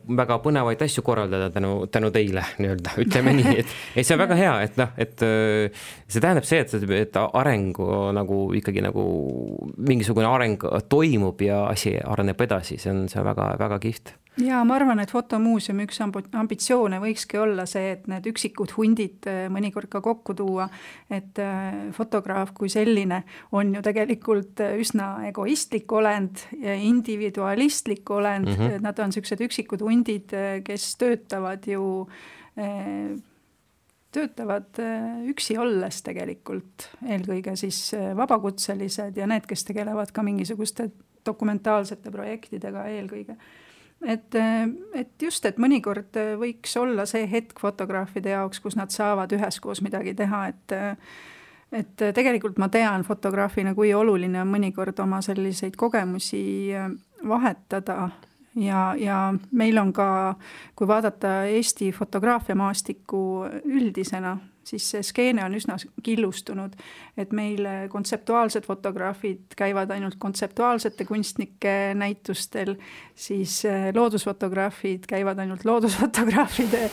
B: väga põnevaid asju korraldada tänu teile, nii-öelda, ütleme nii, et see on väga hea, et see tähendab see, et areng nagu ikkagi nagu mingisugune areng toimub ja asi areneb edasi, see on väga, väga kihvt.
C: Ja ma arvan, et fotomuuseumi üks ambitsioone võikski olla see, et need üksikud hundid mõnikord ka kokku tuua, et fotograaf kui selline on ju tegelikult üsna egoistlik olend ja individualistlik olend, nad on sellised üksikud hundid, kes töötavad üksi olles tegelikult, eelkõige siis vabakutselised ja need, kes tegelevad ka mingisuguste dokumentaalsete projektidega eelkõige. Et just, et mõnikord võiks olla see hetk fotograafide jaoks, kus nad saavad üheskoos midagi teha, et tegelikult ma tean fotograafina, kui oluline on mõnikord oma selliseid kogemusi vahetada ja meil on ka, kui vaadata Eesti fotograafiamaastikku üldisena, siis see skeene on üsna killustunud, et meil kontseptuaalsed fotograafid käivad ainult kontseptuaalsete kunstnike näitustel, siis loodusfotograafid käivad ainult loodusfotograafide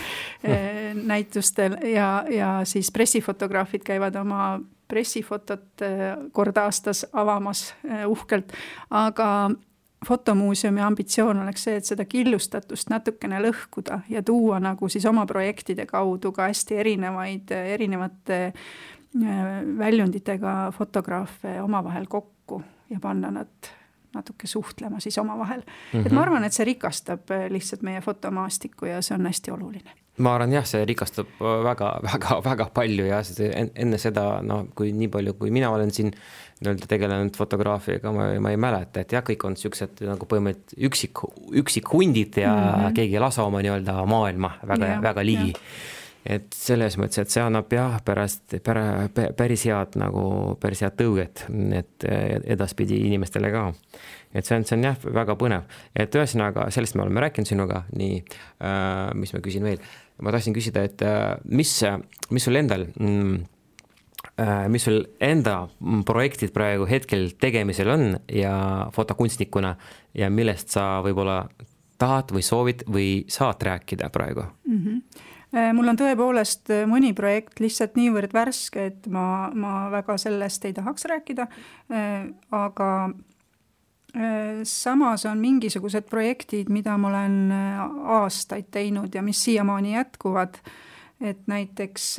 C: näitustel ja siis pressifotograafid käivad oma pressifotot kord aastas avamas uhkelt, aga fotomuuseumi ambitsioon oleks see, et seda killustatust natukene lõhkuda ja tuua nagu siis oma projektide kaudu ka hästi erinevate väljunditega fotograafe omavahel kokku ja panna nad natuke suhtlema siis omavahel. Et ma arvan, et see rikastab lihtsalt meie fotomaastikku ja see on hästi oluline.
B: Ma arvan, jah, see rikastab väga, väga, väga palju ja enne seda, kui nii palju, kui mina olen siin tegelenud fotograafiaga, ma ei mäleta, et jah, kõik on sellised nagu põhimõtteliselt üksik hundid ja keegi ei lasa oma nii-öelda maailma väga ligi. Et selles mõttes, et see annab jah päris head tõuget, et edaspidi inimestele ka. Et see on jah väga põnev. Et ühesõnaga, sellest me oleme rääkinud sinuga, nii, mis ma küsin veel. Ma tahtsin küsida, et mis sul endal, mis sul enda projektid praegu hetkel tegemisel on ja fotokunstnikuna ja millest sa võib-olla tahad või soovid või saad rääkida praegu?
C: Mul on tõepoolest mõni projekt lihtsalt niivõrd värske, et ma väga sellest ei tahaks rääkida, aga samas on mingisugused projektid, mida ma olen aastaid teinud ja mis siiamaani jätkuvad, et näiteks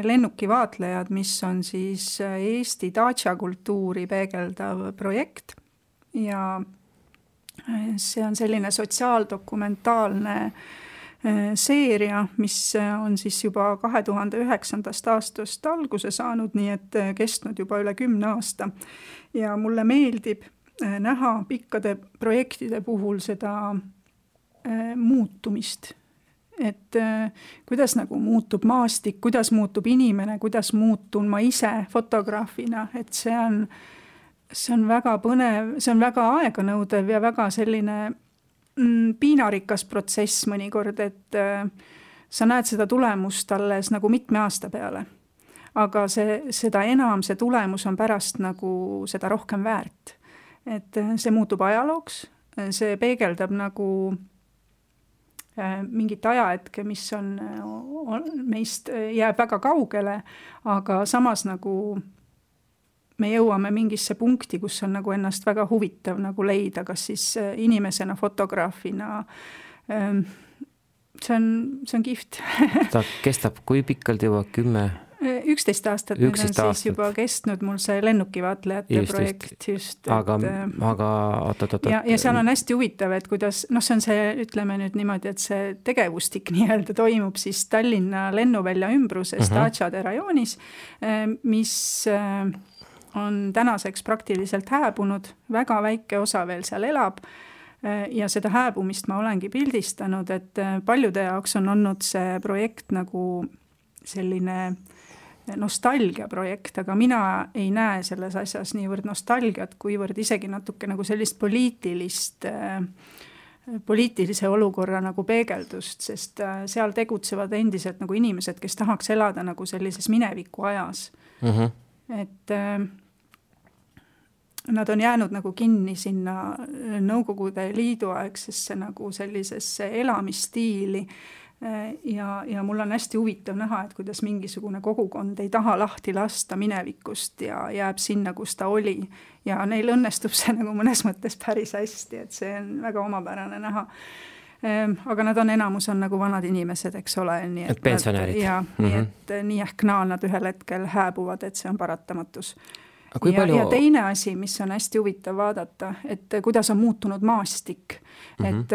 C: lennukivaatlejad, mis on siis Eesti daatša kultuuri peegeldav projekt ja see on selline sotsiaaldokumentaalne seeria, mis on siis juba 2009. aastast alguse saanud, nii et kestnud juba üle 10 aasta ja mulle meeldib näha pikkade projektide puhul seda muutumist, et kuidas nagu muutub maastik, kuidas muutub inimene, kuidas muutun ma ise fotograafina, et see on väga põnev, see on väga aeganõudev ja väga selline piinarikas protsess mõnikord, et sa näed seda tulemust alles nagu mitme aasta peale. aga seda enam see tulemus on pärast nagu seda rohkem väärt. Et see muutub ajalooks, see peegeldab nagu mingit ajahetke, mis on meist jääb väga kaugele, aga samas nagu me jõuame mingisse punkti, kus on nagu ennast väga huvitav nagu leida, kas siis inimesena, fotograafina. See on kihvt.
B: Ta kestab kui pikkalt juba
C: 11 aastat, nüüd on siis juba kestnud mul see lennukivaatlejate projekt just.
B: Aga
C: ja seal on hästi huvitav, et kuidas, see on see, ütleme nüüd niimoodi, et see tegevustik nii-öelda toimub siis Tallinna lennuvälja ümbruses Dačade rajoonis, mis on tänaseks praktiliselt hääbunud, väga väike osa veel seal elab ja seda hääbumist ma olengi pildistanud, et paljude jaoks on olnud see projekt nagu selline nostalgia projekt, aga mina ei näe selles asjas niivõrd nostalgiat, kuivõrd isegi natuke nagu sellist poliitilise olukorra nagu peegeldust, sest seal tegutsevad endiselt nagu inimesed, kes tahaks elada nagu sellises mineviku ajas. Et nad on jäänud nagu kinni sinna Nõukogude Liidu aegsesse nagu sellisesse elamisstiili ja mul on hästi huvitav näha, et kuidas mingisugune kogukond ei taha lahti lasta minevikust ja jääb sinna, kus ta oli ja neil õnnestub see nagu mõnes mõttes päris hästi, et see on väga omapärane näha. Aga nad on enamus on nagu vanad inimesed, eks ole. Nii
B: et pensionärid.
C: Nii et nii ehk naa nad ühel hetkel hääbuvad, et see on paratamatus. Ja teine asi, mis on hästi huvitav vaadata, et kuidas on muutunud maastik. Et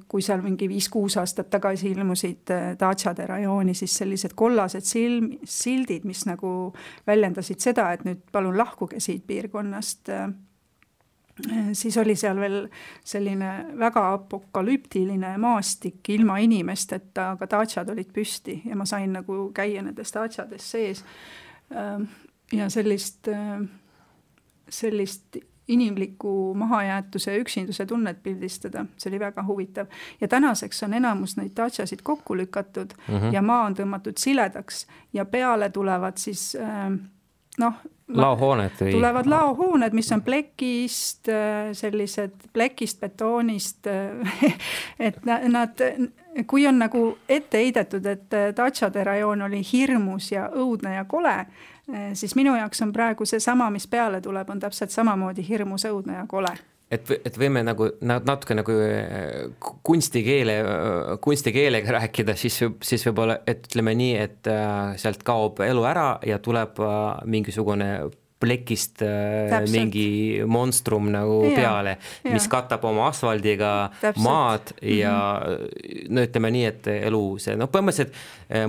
C: kui seal mingi 5-6 aastat tagasi ilmusid Dačade rajooni, siis sellised kollased sildid, mis nagu väljendasid seda, et nüüd palun lahkuge siit piirkonnast, siis oli seal veel selline väga apokalüptiline maastik ilma inimesteta, aga Dačad olid püsti ja ma sain nagu käia nendes Dačades sees ja sellist inimliku mahajäetuse üksinduse tunnet pildistada. See oli väga huvitav. Ja tänaseks on enamus neid Dačasid kokku lükatud ja maa on tõmmatud siledaks ja peale tulevad siis
B: laohooned
C: tulevad laohooned, mis on plekist, sellised plekist, betoonist, et nad, kui on nagu ette heidetud, et Dačade rajoon oli hirmus ja õudne ja kole, siis minu jaoks on praegu see sama, mis peale tuleb, on täpselt samamoodi hirmus, õudne ja kole.
B: Et võime nagu natuke nagu kunstikeelega rääkida, siis võib-olla, et ütleme nii, et sealt kaob elu ära ja tuleb mingisugune plekist mingi monstrum nagu peale, mis katab oma asfaldiga maad ja ütleme nii, et elu see, põhimõtteliselt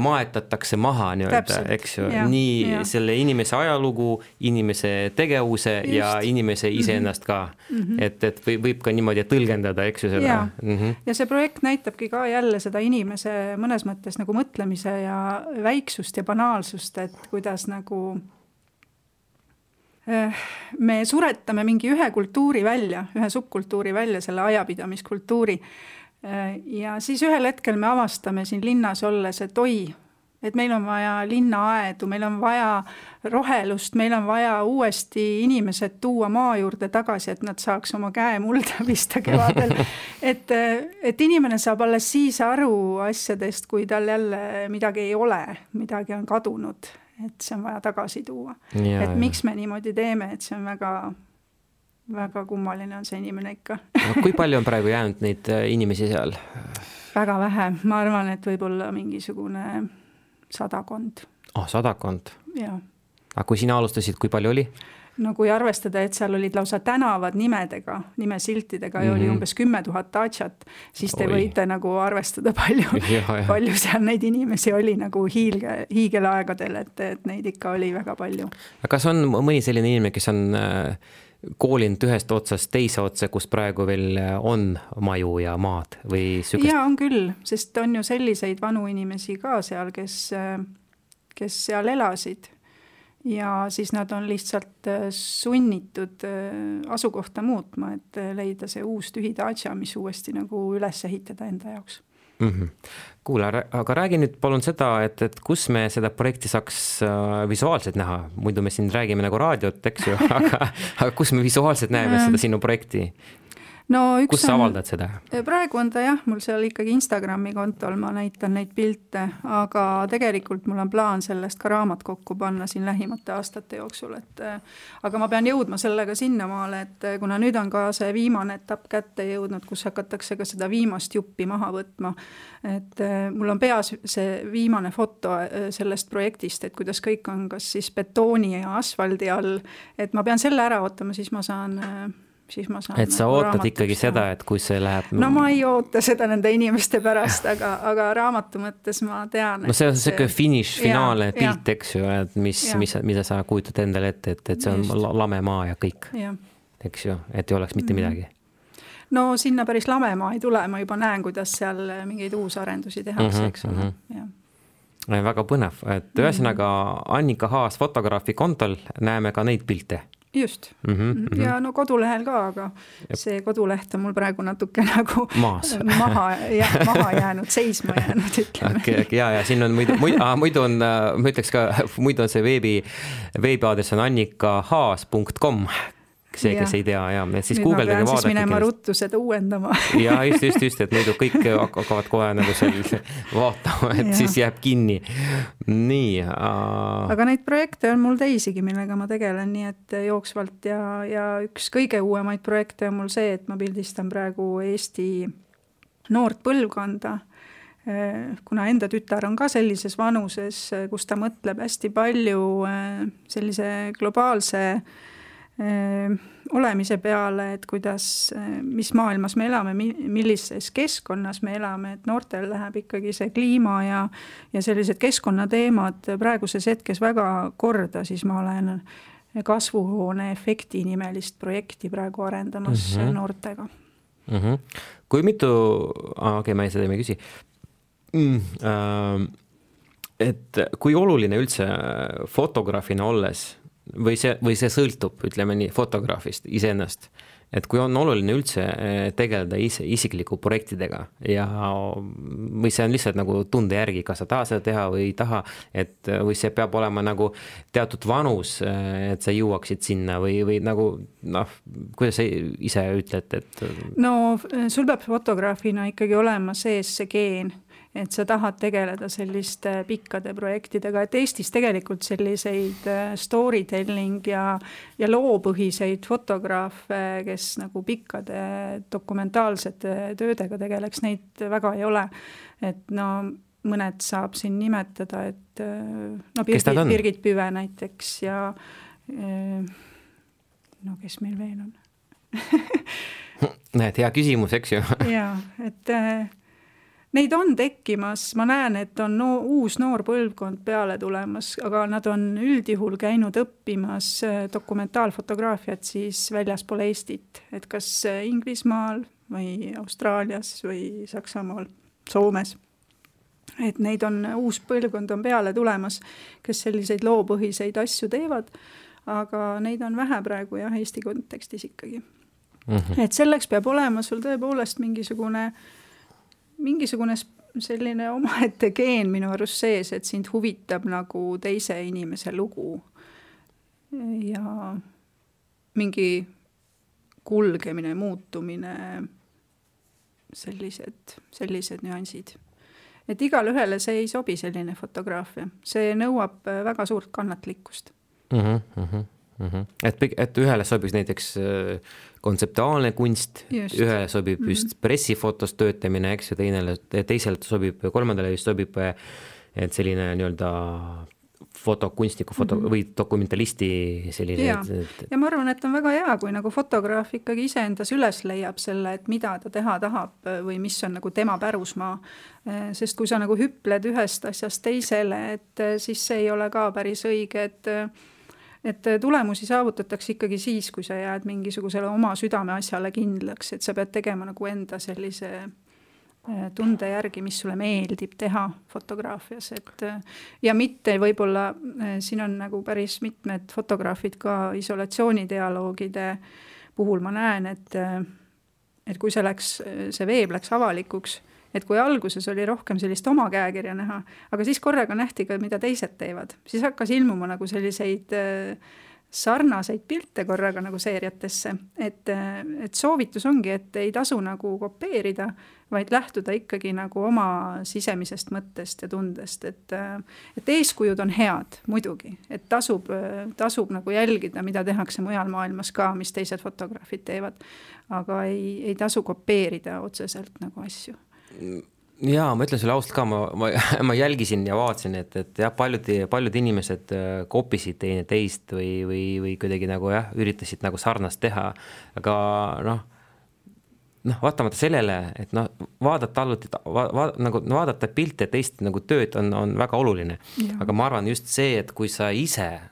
B: maetatakse maha nii-öelda, eks ju, nii selle inimese ajalugu, inimese tegevuse ja inimese iseennast ka. Et võib ka niimoodi tõlgendada, eks ju seda.
C: Ja see projekt näitabki ka jälle seda inimese mõnes mõttes nagu mõtlemise ja väiksust ja banaalsust, et kuidas nagu me suretame mingi ühe kultuuri välja, ühe subkultuuri välja, selle ajapidamiskultuuri. Ja siis ühel hetkel me avastame siin linnas olles, et et meil on vaja linnaaedu, meil on vaja rohelust, meil on vaja uuesti inimesed tuua maa juurde tagasi, et nad saaks oma käe mulda pista kevadel. Et inimene saab alles siis aru asjadest, kui tal jälle midagi ei ole, midagi on kadunud. Et see on vaja tagasi tuua. Et miks me niimoodi teeme, et see on väga, väga kummaline on see inimene ikka.
B: Kui palju on praegu jäänud neid inimesi seal?
C: Väga vähe. Ma arvan, et võib-olla mingisugune 100.
B: 100?
C: Jaa.
B: Aga kui sina alustasid, kui palju oli?
C: No kui arvestada, et seal olid lausa tänavad nimedega, nimesiltidega ja oli umbes 10 000 Dačat, siis te võite nagu arvestada palju seal neid inimesi oli nagu hiigelaegadel, et neid ikka oli väga palju.
B: Aga kas on mõni selline inimene, kes on koolinud ühest otsast teise otsa, kus praegu veel on maju ja maad? Või sügest?
C: Jaa, on küll, sest on ju selliseid vanu inimesi ka seal, kes seal elasid. Ja siis nad on lihtsalt sunnitud asukohta muutma, et leida see uus tühi Dača, mis uuesti nagu üles ehitada enda jaoks.
B: Kuule, aga räägi nüüd palun seda, et kus me seda projekti saaks visuaalselt näha, muidu me siin räägime nagu raadiot, eks ju, aga kus me visuaalselt näeme seda sinu projekti?
C: No,
B: kus sa avaldad seda?
C: Praegu on ta jah, mul seal ikkagi Instagrami kontol, ma näitan neid pilte, aga tegelikult mul on plaan sellest ka raamat kokku panna siin lähimate aastate jooksul, aga ma pean jõudma sellega sinnamaale, et kuna nüüd on ka see viimane etapp kätte jõudnud, kus hakatakse ka seda viimast juppi maha võtma, et mul on peas see viimane foto sellest projektist, et kuidas kõik on kas siis betooni ja asfaldi all, et ma pean selle ära ootama, siis ma saan
B: et sa ootad ikkagi seda, et kui see läheb...
C: No ma ei oota seda nende inimeste pärast, aga raamatu mõttes ma tean...
B: No see on see finish, finaale pilt, eks ju, et mida sa kujutad endale ette, et see on lame maa ja kõik, eks ju, et ei oleks mitte midagi.
C: No sinna päris lame maa ei tule, ma juba näen, kuidas seal mingeid uusarendusi tehakse, eks ole.
B: Väga põnev, et ühesõnaga Annika Haas fotograafi kontol näeme ka neid pilte.
C: Just. Ja no kodulehel ka, aga see koduleht on mul praegu natuke nagu maha jäänud, seisma jäänud, ütleme.
B: Ja siin on muidu on, ma ütleks ka, muidu on see veebiaadress on annikahaas.com, see, kes ei tea, ja siis Google
C: pean siis minema ruttu seda uuendama.
B: Ja just, et muidu kõik hakkavad kohe nagu seal vaatama, et siis jääb kinni. Nii.
C: Aga neid projekte on mul teisigi, millega ma tegelen, nii et jooksvalt ja üks kõige uuemaid projekte on mul see, et ma pildistan praegu Eesti noort põlvkonda, kuna enda tütar on ka sellises vanuses, kus ta mõtleb hästi palju sellise globaalse olemise peale, et kuidas, mis maailmas me elame, millises keskkonnas me elame, et noortel läheb ikkagi see kliima ja sellised keskkonnateemad praeguses hetkes väga korda, siis ma olen kasvuhoone efekti nimelist projekti praegu arendamas noortega.
B: Kui mitu, ma seda ei küsi, et kui oluline üldse fotograafina olles või see sõltub, ütleme nii, fotograafist iseennast, et kui on oluline üldse tegeleda isikliku projektidega või see on lihtsalt nagu tunde järgi, kas sa tahad seda teha või ei taha, või see peab olema nagu teatud vanus, et sa jõuaksid sinna või nagu, kuidas sa ise ütled, et...
C: No sul peab fotograafina ikkagi olema sees see geen, et sa tahad tegeleda selliste pikkade projektidega, et Eestis tegelikult selliseid storytelling ja loopõhiseid fotograafe, kes nagu pikkade dokumentaalsete töödega tegeleks, neid väga ei ole. Et no mõned saab siin nimetada, et Birgit Püve näiteks ja kes meil veel on?
B: Näed, hea küsimus, eks ju?
C: Jaa, et... Neid on tekkimas, ma näen, et on uus noor põlvkond peale tulemas, aga nad on üldjuhul käinud õppimas dokumentaalfotograafiat siis väljaspool Eestit, et kas Inglismaal või Austraalias või Saksamaal, Soomes. Et neid on, uus põlvkond on peale tulemas, kes selliseid loopõhiseid asju teevad, aga neid on vähe praegu jah, Eesti kontekstis ikkagi. Et selleks peab olema sul tõepoolest mingisugune selline omaette geen minu arust sees, et sind huvitab nagu teise inimese lugu ja mingi kulgemine, muutumine, sellised nüansid. Et igal ühele see ei sobi selline fotograafia. See nõuab väga suurt kannatlikkust.
B: Et ühele sobiks näiteks kontseptuaalne kunst, ühele sobib just pressifotos töötamine, eks ju, teiselt sobib, kolmandale just sobib et selline nii-öelda fotokunstniku või dokumentalisti selline.
C: Ja ma arvan, et on väga hea, kui nagu fotograaf ikkagi iseendas üles leiab selle, et mida ta teha tahab või mis on nagu tema pärusmaa. Sest kui sa nagu hüpled ühest asjast teisele, et siis see ei ole ka päris õige, et tulemusi saavutatakse ikkagi siis, kui sa jääd mingisugusele oma südame asjale kindlaks, et sa pead tegema nagu enda sellise tunde järgi, mis sulle meeldib teha fotograafias. Ja mitte võib-olla, siin on nagu päris mitmed fotograafid ka isolatsioonidialoogide puhul ma näen, et kui see veeb läks avalikuks, et kui alguses oli rohkem sellist oma käekirja näha, aga siis korraga nähti ka, mida teised teevad. Siis hakkas ilmuma nagu selliseid sarnaseid pilte korraga nagu seeriatesse, et soovitus ongi, et ei tasu nagu kopeerida, vaid lähtuda ikkagi nagu oma sisemisest mõttest ja tundest, et eeskujud on head muidugi, et tasub nagu jälgida, mida tehakse mujal maailmas ka, mis teised fotograafid teevad, aga ei tasu kopeerida otseselt nagu asju.
B: Jaa, ma ütlen sulle ausalt ka, ma jälgisin ja vaatasin, et jah, paljud inimesed kopisid teine teist või kuidagi nagu jah, üritasid nagu sarnast teha, aga vaatamata sellele, et vaadata pilte teist nagu tööd on väga oluline, aga ma arvan just see, et kui sa ise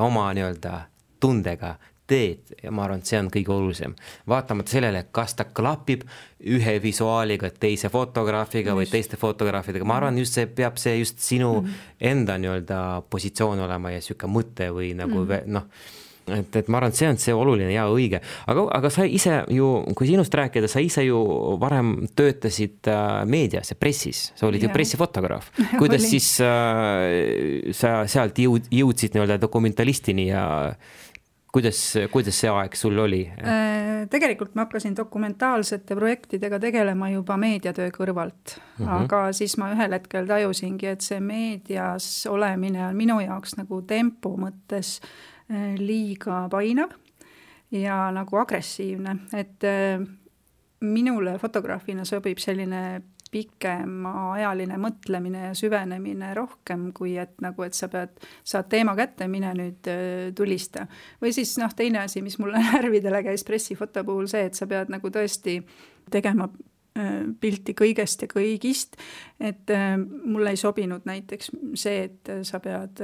B: oma nii-öelda tundega teed ja ma arvan, et see on kõige olulisem. Vaatamata sellele, kas ta klapib ühe visuaaliga, teise fotograafiga või teiste fotograafidega. Ma arvan, just see peab see just sinu enda nii-öelda positsioon olema ja siuke mõte või nagu et ma arvan, et see on see oluline ja õige. Aga sa ise ju, kui sinust rääkida, sa ise ju varem töötasid meedias ja pressis. Sa olid ju pressifotograaf. Kuidas siis sa sealt jõudsid nii-öelda dokumentalistini ja kuidas see aeg sul oli?
C: Tegelikult ma hakkasin dokumentaalsete projektidega tegelema juba meediatöö kõrvalt, aga siis ma ühel hetkel tajusingi, et see meedias olemine on minu jaoks nagu tempo mõttes liiga painav ja nagu agressiivne, et minule fotograafina sobib selline pikemaajaline mõtlemine ja süvenemine rohkem, kui et sa saad teema kätte, mine nüüd tulista. Või siis teine asi, mis mulle närvidele käis pressifoto puhul see, et sa pead nagu tõesti tegema pilti kõigest ja kõigist, et mulle ei sobinud näiteks see, et sa pead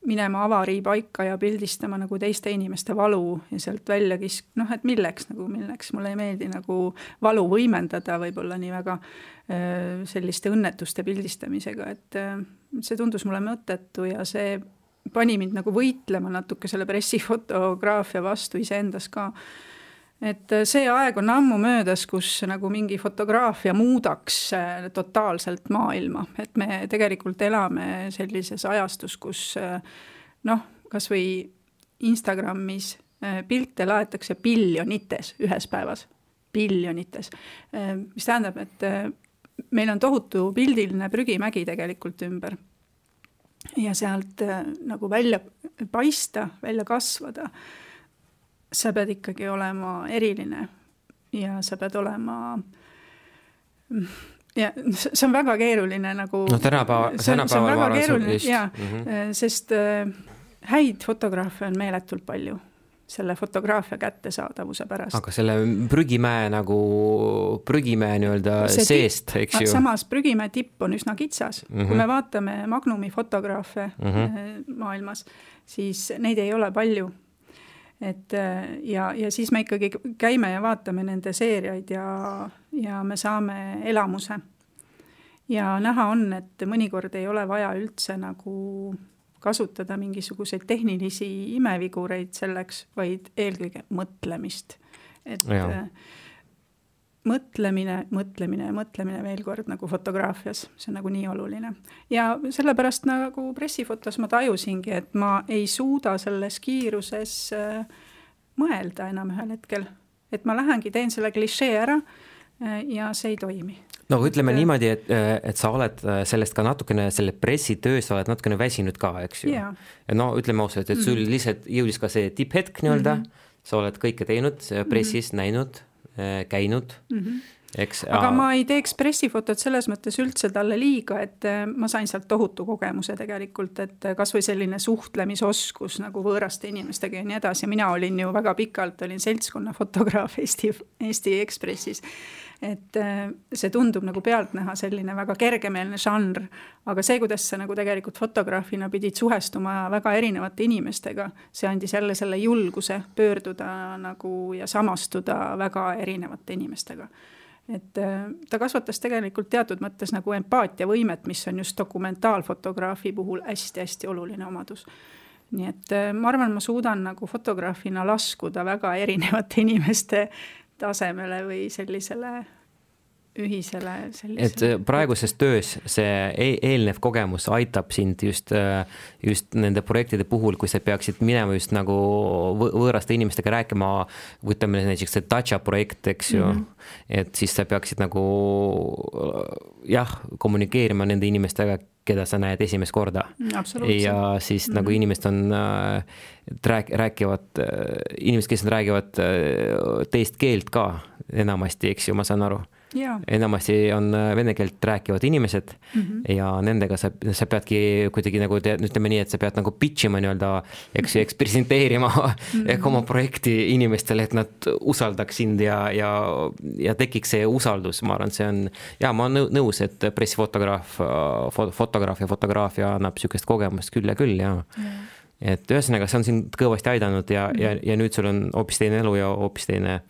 C: minema avarii paika ja pildistama nagu teiste inimeste valu ja sealt välja et milleks mulle ei meeldi nagu valu võimendada võib-olla nii väga selliste õnnetuste pildistamisega, et see tundus mulle mõttetu ja see pani mind nagu võitlema natuke selle pressifotograafia vastu iseendas ka. Et see aeg on ammu möödas, kus nagu mingi fotograafia muudaks totaalselt maailma, et me tegelikult elame sellises ajastus, kus kas või Instagramis pilte laetakse biljonites ühes päevas, biljonites, mis tähendab, et meil on tohutu pildiline prügimägi tegelikult ümber ja sealt nagu välja paista, välja kasvada. Sa pead ikkagi olema eriline ja sa pead olema ja see on väga keeruline nagu see on väga keeruline sest häid fotograafe on meeletult palju selle fotograafia kättesaadavuse pärast. Aga
B: selle prügimäe nii-öelda seest, eks ju?
C: Samas prügimäe tipp on üsna kitsas. Kui me vaatame Magnumi fotograafe maailmas, siis neid ei ole palju. Ja siis me ikkagi käime ja vaatame nende seeriaid ja me saame elamuse. Ja näha on, et mõnikord ei ole vaja üldse nagu kasutada mingisuguseid tehnilisi imevigureid selleks, vaid eelkõige mõtlemist. Et mõtlemine veel kord nagu fotograafias, see on nagu nii oluline. Ja sellepärast nagu pressifotos ma tajusingi, et ma ei suuda selles kiiruses mõelda enam ühel hetkel. Et ma lähengi, teen selle klišee ära ja see ei toimi.
B: No ütleme niimoodi, et sa oled sellest ka natukene, selle pressitöös sa oled natukene väsinud ka, eks ju? Ja no ütleme ausalt, et sul lihtsalt jõudis ka see tipphetk nii-öelda, sa oled kõike teinud, pressis näinud, käinud, eks.
C: Aga ma ei teeks pressifotot selles mõttes üldse talle liiga, et ma sain sealt tohutu kogemuse tegelikult, et kas või selline suhtlemisoskus nagu võõraste inimestega ja nii edasi. Mina olin ju väga pikalt, olin seltskonna fotograaf Eesti Ekspressis, et see tundub nagu pealt näha selline väga kergemeelne žanr, aga see, kuidas sa nagu tegelikult fotograafina pidid suhestuma väga erinevate inimestega, see andis jälle selle julguse pöörduda nagu ja samastuda väga erinevate inimestega. Et ta kasvatas tegelikult teatud mõttes nagu empaatia võimet, mis on just dokumentaalfotograafi puhul hästi-hästi oluline omadus. Nii et ma arvan, ma suudan nagu fotograafina laskuda väga erinevate inimeste tasemele või sellisele ühisele sellisele.
B: Et praeguses töös see eelnev kogemus aitab sind just nende projektide puhul, kui sa peaksid minema just nagu võõraste inimestega rääkima, võtame näiteks see Dacia projekt, eks ju, et siis sa peaksid nagu kommunikeerima nende inimestega, keda sa näed esimest korda. Ja siis nagu inimesed on räägivad, inimesed, kes räägivad teist keelt ka enamasti, eks ju, ma saan aru. Enamasti on vene keelt rääkivad inimesed ja nendega sa peadki kuidagi nagu, ütleme nii, et sa pead nagu pitchima nii-öelda, eks presenteerima oma projekti inimestele, et nad usaldaks sind ja tekiks see usaldus. Ma arvan, see on, ma olen nõus, et fotograafia annab sükest kogemust küll ja küll, et ühesõnaga, see on sind kõvasti aidanud ja nüüd sul on hoopis teine elu ja hoopis teine.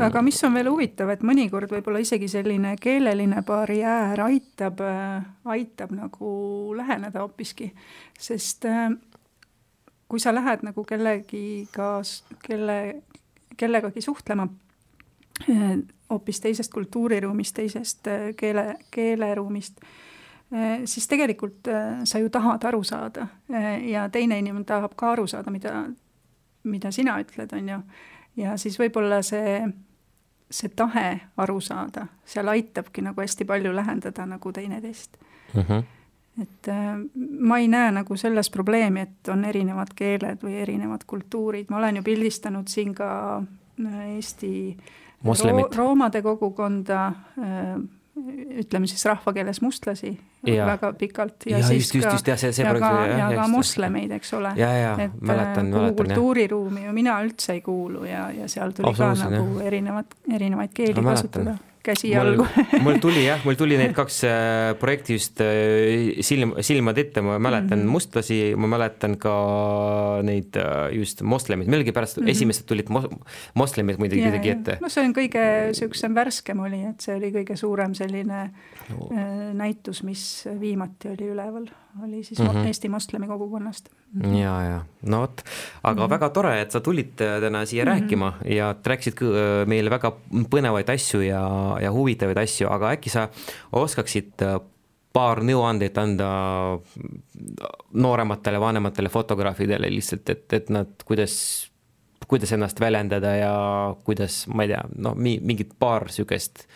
C: Aga mis on veel huvitav, et mõnikord võib-olla isegi selline keeleline barjäär aitab nagu läheneda hoopiski, sest kui sa lähed nagu kellegagi suhtlema hoopis teisest kultuuriruumist, teisest keeleruumist, siis tegelikult sa ju tahad aru saada ja teine inimene tahab ka aru saada, mida sina ütled, on ju. Ja siis võib-olla see tahe aru saada, seal aitabki nagu hästi palju lähendada nagu teineteist. Et ma ei näe nagu selles probleemi, et on erinevad keeled või erinevad kultuurid. Ma olen ju pildistanud siin ka Eesti roomade kogukonda, ütleme siis rahvakeeles mustlasi väga pikalt ja siis ka moslemeid, eks ole.
B: Mäletan.
C: Kuhu kultuuriruumi ju mina üldse ei kuulu ja seal tuli ka nagu erinevaid keeli kasutada. Käsi jalgu.
B: Mul tuli need kaks projekti just silmad ette, ma mäletan mustlasi, ma mäletan ka neid just moslemid. Melgi pärast esimesed tulid moslemid muidugi ette.
C: No see on kõige süüksem värskem oli, et see oli kõige suurem selline näitus, mis viimati oli üleval. Oli siis Eesti moslemi kogukonnast.
B: Ja. No võt, aga väga tore, et sa tulid täna siia rääkima ja rääkisid meile väga põnevaid asju ja huvitavaid asju, aga äkki sa oskaksid paar nõuandeid anda noorematele, vanematele fotograafidele lihtsalt, et nad kuidas ennast väljendada ja kuidas, ma ei tea, mingid paar sükest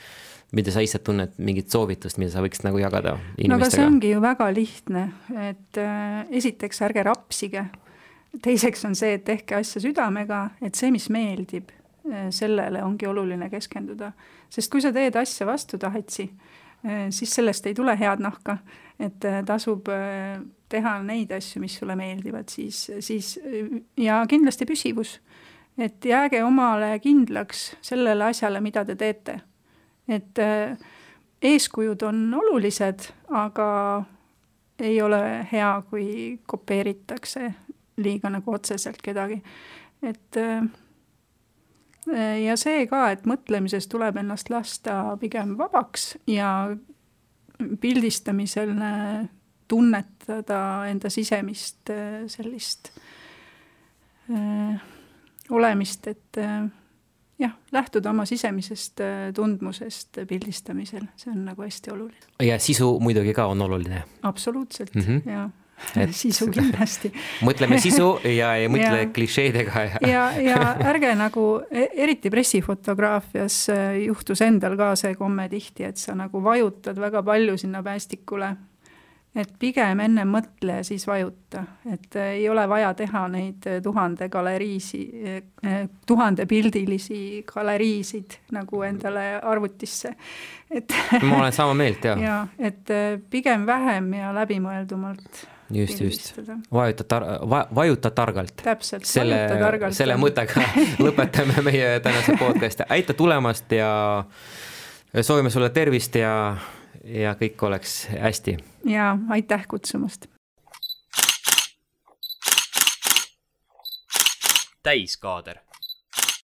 B: mida sa ise tunned, mingit soovitust, mida sa võiksid nagu jagada inimestega?
C: No aga see ongi ju väga lihtne, et esiteks ärge rapsige. Teiseks on see, et tehke asja südamega, et see, mis meeldib, sellele ongi oluline keskenduda. Sest kui sa teed asja vastu tahetsi, siis sellest ei tule head nahka, et tasub teha neid asju, mis sulle meeldivad, siis ja kindlasti püsivus. Et jääge omale kindlaks sellele asjale, mida te teete. Et eeskujud on olulised, aga ei ole hea, kui kopeeritakse liiga nagu otseselt kedagi. Et, ja see ka, et mõtlemises tuleb ennast lasta pigem vabaks ja pildistamisel tunnetada enda sisemist sellist olemist, et lähtuda oma sisemisest tundmusest pildistamisel, see on nagu hästi oluline.
B: Ja sisu muidugi ka on oluline.
C: Absoluutselt, ja sisu kindlasti.
B: Mõtleme sisu ja ei mõtle klišeedega.
C: Ja ärge nagu, eriti pressifotograafias juhtus endal ka see komme tihti, et sa nagu vajutad väga palju sinna päästikule. Et pigem enne mõtle ja siis vajuta. Et ei ole vaja teha neid 1000 pildilisi galeriisid nagu endale arvutisse.
B: Ma olen sama meelt, jah.
C: Ja, et pigem vähem ja läbimõeldumalt.
B: Just. Vajuta targalt.
C: Täpselt,
B: vajuta targalt. Selle mõttega lõpetame meie tänase podcasti. Aita tulemast ja soovime sulle tervist ja kõik oleks hästi.
C: Ja aitäh kutsumast.
A: Täiskaader.